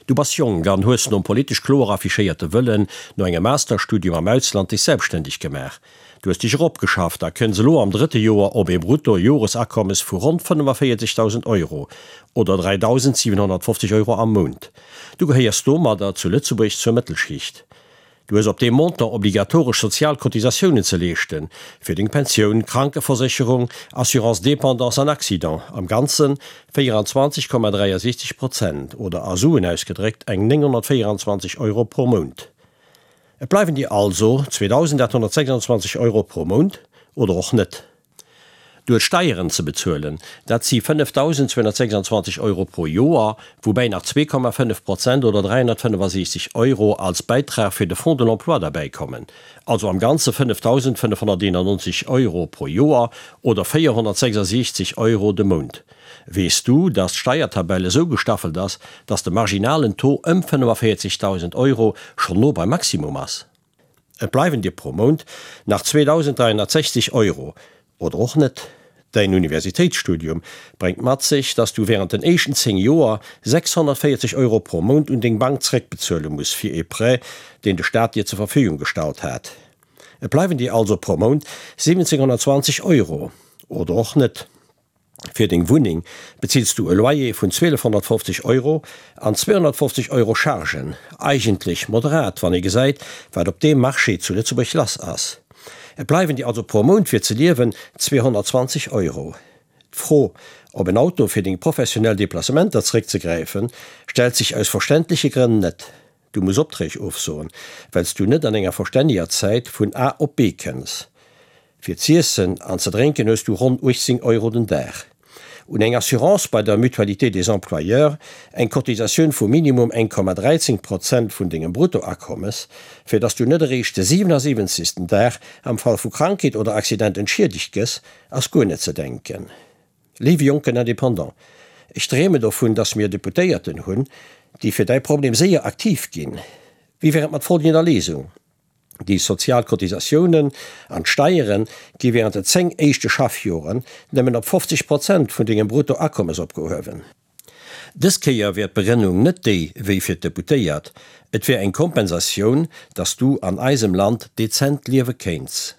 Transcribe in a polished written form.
Du bass jonk an hues nom politesch kloer affichéierte Wëllen no engem Masterstudium am Ausland dech selbstständeg gemaach. Du hues dech eropgeschafft a kënns elo am drëtte Joer op ee Brutto-Joresakommes vu ronn 45.000 Euro oder 3.750 Euro am Mount. Du gehéiers domadder zu Lëtzebuerg zur Mëttelschicht. Du hues op deem Montant obligatoresch sozial Cotisatiounen ze leeschten, fir deng Pensioun, Krankeversécherung, Assurance dépendance an Accident, am Ganze 24,63 Prozent oder a Suen ausgedréckt eng 924 Euro pro Mount. Et bleiwen dir also 2.826 Euro pro Mount, oder och net. Du hues Steieren ze bezuelen, dat si 5.226 Euro pro Joer, woubäi nach 2,5 Prozent oder 365 Euro als Bäitrag fir de Fonds de l'emploi derbäikommen, also am Ganze 5.591 Euro pro Joer oder 466 Euro de Mount. Weess du, dass d'Steiertabell esou gestaffelt ass, dass de marginalen Taux ëm 45.000 Euro schonn no beim Maximum ass? Et bleiwen dir pro Mount nach 2.360 Euro, oder och net. Däin Universitéitsstudium bréngt mat sech, dass du wärend den éischten 10 Joer 640 Euro pro Mount un deng Bank zeréckbezuele muss fir ee Prêt, deen de Staat dir zur Verfügung gestallt hat. Et bleiwen dir also pro Mount 1.720 Euro, oder och net. Fir deng Wunneng bezills du e Loyer vun 1.250 Euro an 250 Euro Chargen, eigentlech moderat, wann ee gesäit, wat op deem Marché zu Lëtzebuerg lass ass. Et bleiwen dir also pro Mount fir ze liewen 220 Euro. D'Fro, op en Auto fir deng professionell Deplacementer zeréckzegräifen, stellt sech aus verständleche Grënn net. Du muss Opträg ofsoen, well s du net an enger verstänneger Zäit vun A op B kënns. Fir z'iessen an ze drénken hues du ronn 18 Euro den Dag. Un eng Assurance bei der Mutualité des employeurs, eng Cotisatioun vu minimum 1,13 Prozent vun dengem Bruttoakommes, fir dass du net eréischt de 77. Dag am Fall vu Krankheet oder Accident entschiedegt gëss, ass guer net ze denken. Léiwe jonken Indépendant, ech dreemen dovun, dass mir Deputéierten hunn, déi fir däi Problem séier aktiv ginn. Wéi wär et mat folgender Léisung, Déi sozial Cotisatiounen an d'Steiere gi während de 10 éischte Schaffjoren nëmmen op 50 Prozent vun dengem Bruttoakommes opgehuewen. Dës Kéier wär d'Begrënnung net déi wéi fir d'Deputéiert, et wär eng Kompensatioun, dass du an eisem Land dezent liewe kéints.